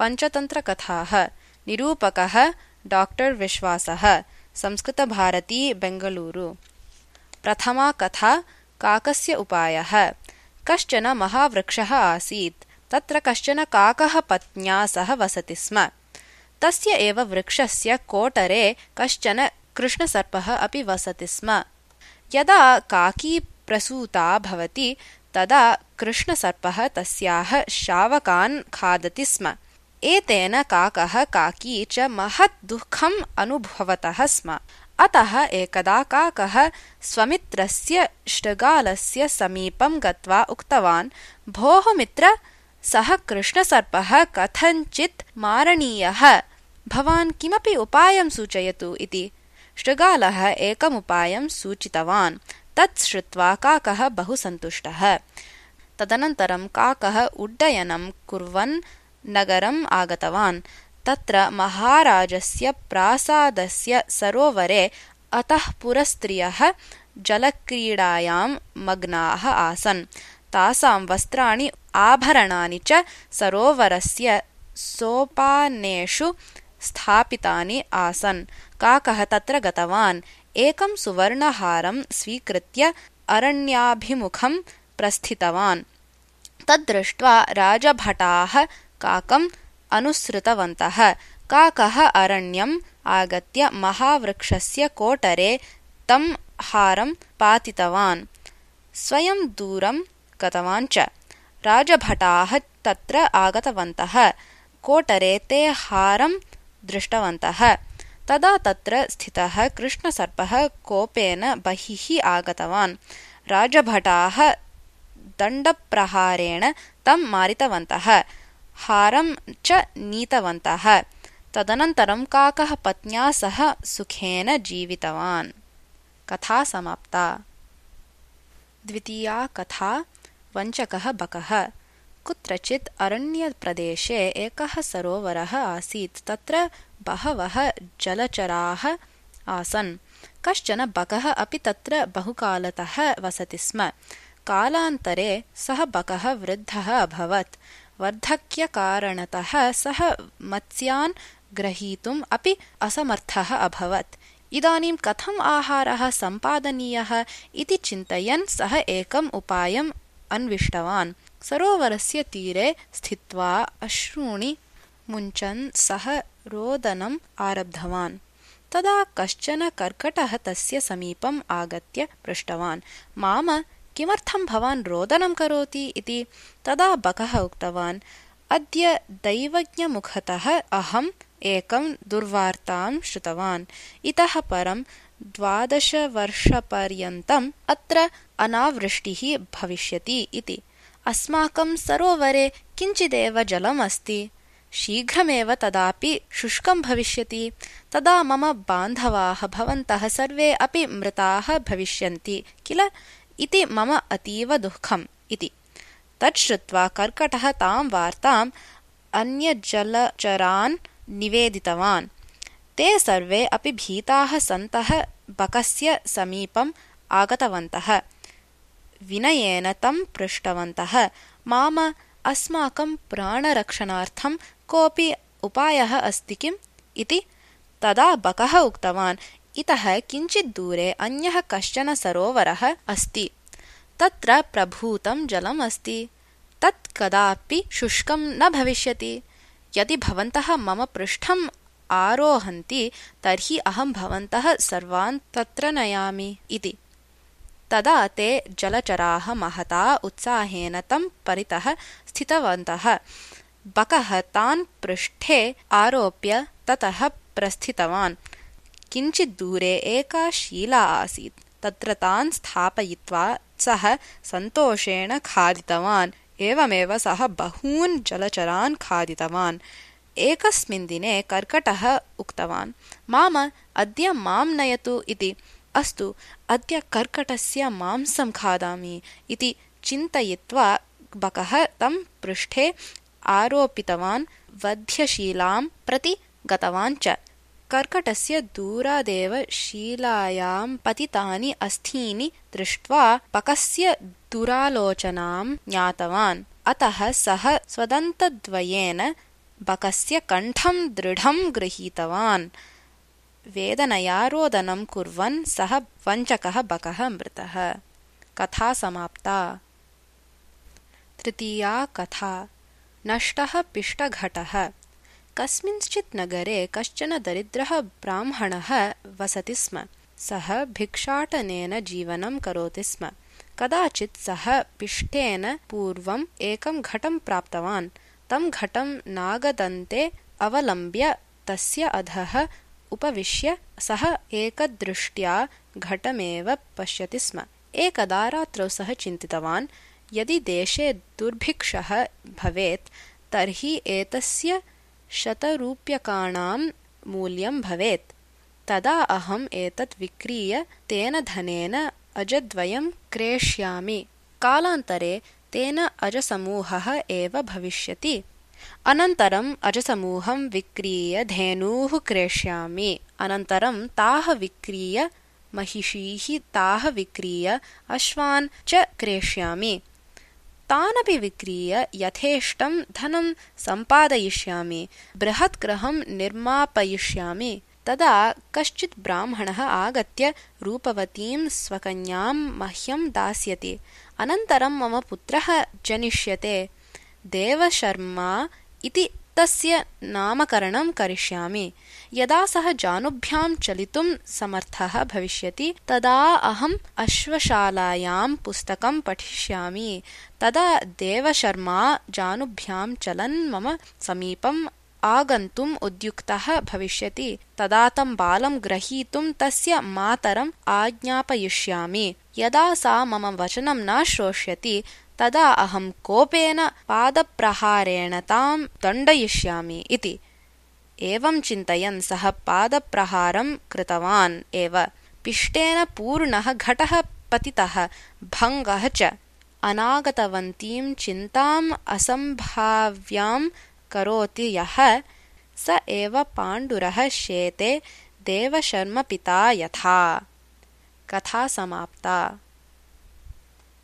पञ्चतन्त्रकथाः निरूपकः doctor विश्वासः संस्कृतभारती बेङ्गलूरु। प्रथमा कथा काकस्य उपायः। कश्चन महावृक्षः आसीत्। तत्र कश्चन काकः पत्न्या सह वसति स्म। तस्य एव वृक्षस्य कोटरे कश्चन कृष्णसर्पः अपि वसति स्म। यदा काकी प्रसूता भवति तदा कृष्णसर्पः तस्याः शावकान् खादति स्म। एतेन काकः काकी च महत् दुःखम् अनुभवतः स्म। अतः एकदा काकः स्वमित्रस्य शृगालस्य समीपं गत्वा उक्तवान्, भोः मित्र, सः कृष्णसर्पः कथञ्चित् मारणीयः, भवान् किमपि उपायं सूचयतु इति। शृगालः एकमुपायं सूचितवान्। तत् श्रुत्वा काकः बहु सन्तुष्टः। तदनन्तरं काकः उड्डयनं कुर्वन् नगरम् आगतवान्। तत्र महाराजस्य प्रासादस्य सरोवरे अतःपुरस्त्रियः जलक्रीडायां मग्नाः आसन्। तासां वस्त्राणि आभरणानि च सरोवरस्य सोपानेषु स्थापितानि आसन्। काकः तत्र गतवान्। एकं सुवर्णहारं स्वीकृत्य अरण्याभिमुखं प्रस्थितवान्। तद्दृष्ट्वा राजभटाः काकम् अनुसृतवन्तः। काकः अरण्यम् आगत्य महावृक्षस्य कोटरे तं हारं पातितवान्। स्वयं दूरं गतवान् च। राजभटाः तत्र आगतवन्तः। कोटरे ते हारं दृष्टवन्तः। तदा तत्र स्थितः कृष्णसर्पः कोपेन बहिः आगतवान्। राजभटाः दण्डप्रहारेण तं मारितवन्तः। हारं च नीतवन्तः। तदनन्तरं काकः पत्न्या सह सुखेन जीवितवान्। कथा समाप्ता। द्वितीया कथा वञ्चकः बकः। कुत्रचित् अरण्यप्रदेशे एकः सरोवरः आसीत्। तत्र बहवः जलचराः आसन्। कश्चन बकः अपि तत्र बहुकालतः वसति स्म। कालान्तरे सः बकः वृद्धः अभवत्। वार्धक्यकारणतः सः मत्स्यान् ग्रहीतुम् अपि असमर्थः अभवत्। इदानीं कथम् आहारः सम्पादनीयः इति चिन्तयन् सः एकम् उपायम् अन्विष्टवान्। सरोवरस्य तीरे स्थित्वा अश्रूणि मुञ्चन् सः रोदनम् आरब्धवान्। तदा कश्चन कर्कटः तस्य समीपम् आगत्य पृष्टवान्, माम, किमर्थं भवान् रोदनं करोति इति। तदा बकः उक्तवान्, अद्य दैवज्ञमुखतः अहम् एकं दुर्वार्तां श्रुतवान्। इतः परं 12 वर्षपर्यन्तम् अत्र अनावृष्टिः भविष्यति इति। अस्माकं सरोवरे किञ्चिदेव जलम् अस्ति। शीघ्रमेव तदापि शुष्कं भविष्यति। तदा मम बान्धवाः भवन्तः सर्वे अपि मृताः भविष्यन्ति किल इति मम अतीव दुःखम् इति। तच्छ्रुत्वा कर्कटः तां वार्ताम् अन्यजलचरान् निवेदितवान्। ते सर्वे अपि भीताः सन्तः बकस्य समीपम् आगतवन्तः। विनयेन तं पृष्टवन्तः, माम, अस्माकं प्राणरक्षणार्थं कोऽपि उपायः अस्ति किम् इति। तदा बकः उक्तवान्, इतः किञ्चित् दूरे अन्यः कश्चन सरोवरः अस्ति। तत्र प्रभूतं जलम् अस्ति। तत् कदापि शुष्कं न भविष्यति। यदि भवन्तः मम पृष्ठम् आरोहन्ति तर्हि अहं भवन्तः सर्वान् तत्र नयामि इति। तदा ते जलचराः महता उत्साहेन तं परितः स्थितवन्तः। बकः तान् पृष्ठे आरोप्य ततः प्रस्थितवान्। किञ्चित् दूरे एका शीला आसीत्। तत्र तान् स्थापयित्वा सः सन्तोषेण खादितवान्। एवमेव सः बहून् जलचरान् खादितवान्। एकस्मिन् दिने कर्कटः उक्तवान्, माम, अद्य मां नयतु इति। अस्तु, अद्य कर्कटस्य मांसं खादामि इति चिन्तयित्वा बकः तं पृष्ठे आरोपितवान्। वध्यशीलां प्रति गतवान् च। कर्कटस्य दूरादेव शीलायां पतितानि अस्थीनि दृष्ट्वा बकस्य दुरालोचनां ज्ञातवान्। अतः सः स्वदन्तद्वयेन बकस्य कण्ठं दृढं गृहीतवान्। वेदनया रोदनं कुर्वन् सः वञ्चकः बकः मृतः। कथा समाप्ता। तृतीया कथा। नष्टः पिष्टघटः। कस्मिंश्चित् नगरे कश्चन दरिद्रः ब्राह्मणः वसति स्म। सः भिक्षाटनेन जीवनं करोति स्म। कदाचित् सः पिष्टेन पूर्वम् एकं घटं प्राप्तवान्। तं घटं नागदन्ते अवलम्ब्य तस्य अधः उपविश्य सः एकदृष्ट्या घटमेव पश्यति स्म। एकदा रात्रौ सः चिन्तितवान्, यदि देशे दुर्भिक्षः भवेत् तर्हि एतस्य 100 रूप्यकाणां मूल्यं भवेत्। तदा अहम् एतत् विक्रीय तेन धनेन अजद्वयं क्रेष्यामि। कालान्तरे तेन अजसमूहः एव भविष्यति। अनन्तरम् अजसमूहं विक्रीय धेनूः क्रेष्यामि। अनन्तरं ताः विक्रीय महिषीः, ताः विक्रीय अश्वान् च क्रेष्यामि। तानपि विक्रीय यथेष्टं धनं सम्पादयिष्यामि। बृहत् गृहं निर्मापयिष्यामि। तदा कश्चित् ब्राह्मणः आगत्य रूपवतीं स्वकन्यां मह्यं दास्यति। अनन्तरं मम पुत्रः जनिष्यते। देवशर्मा इति तस्य नामकरणं करिष्यामि। यदा सः जानुभ्यां चलितुं समर्थः भविष्यति तदा अहम् अश्वशालायां पुस्तकं पठिष्यामि। तदा देवशर्मा जानुभ्यां चलन् मम समीपम् आगन्तुम् उद्युक्तः भविष्यति। तदा तं बालं ग्रहीतुं तस्य मातरम् आज्ञापयिष्यामि। यदा सा मम वचनं न श्रोष्यति तदा अहं कोपेन पादप्रहारेण तां दण्डयिष्यामि इति। एवं चिन्तयन् सः पादप्रहारं कृतवान् एव। पिष्टेन पूर्णः घटः पतितः, भङ्गः च। अनागतवन्तीं चिन्ताम् असम्भाव्यां करोति यः, स एव पाण्डुरः शेते देवशर्मपिता यथा। कथा समाप्ता।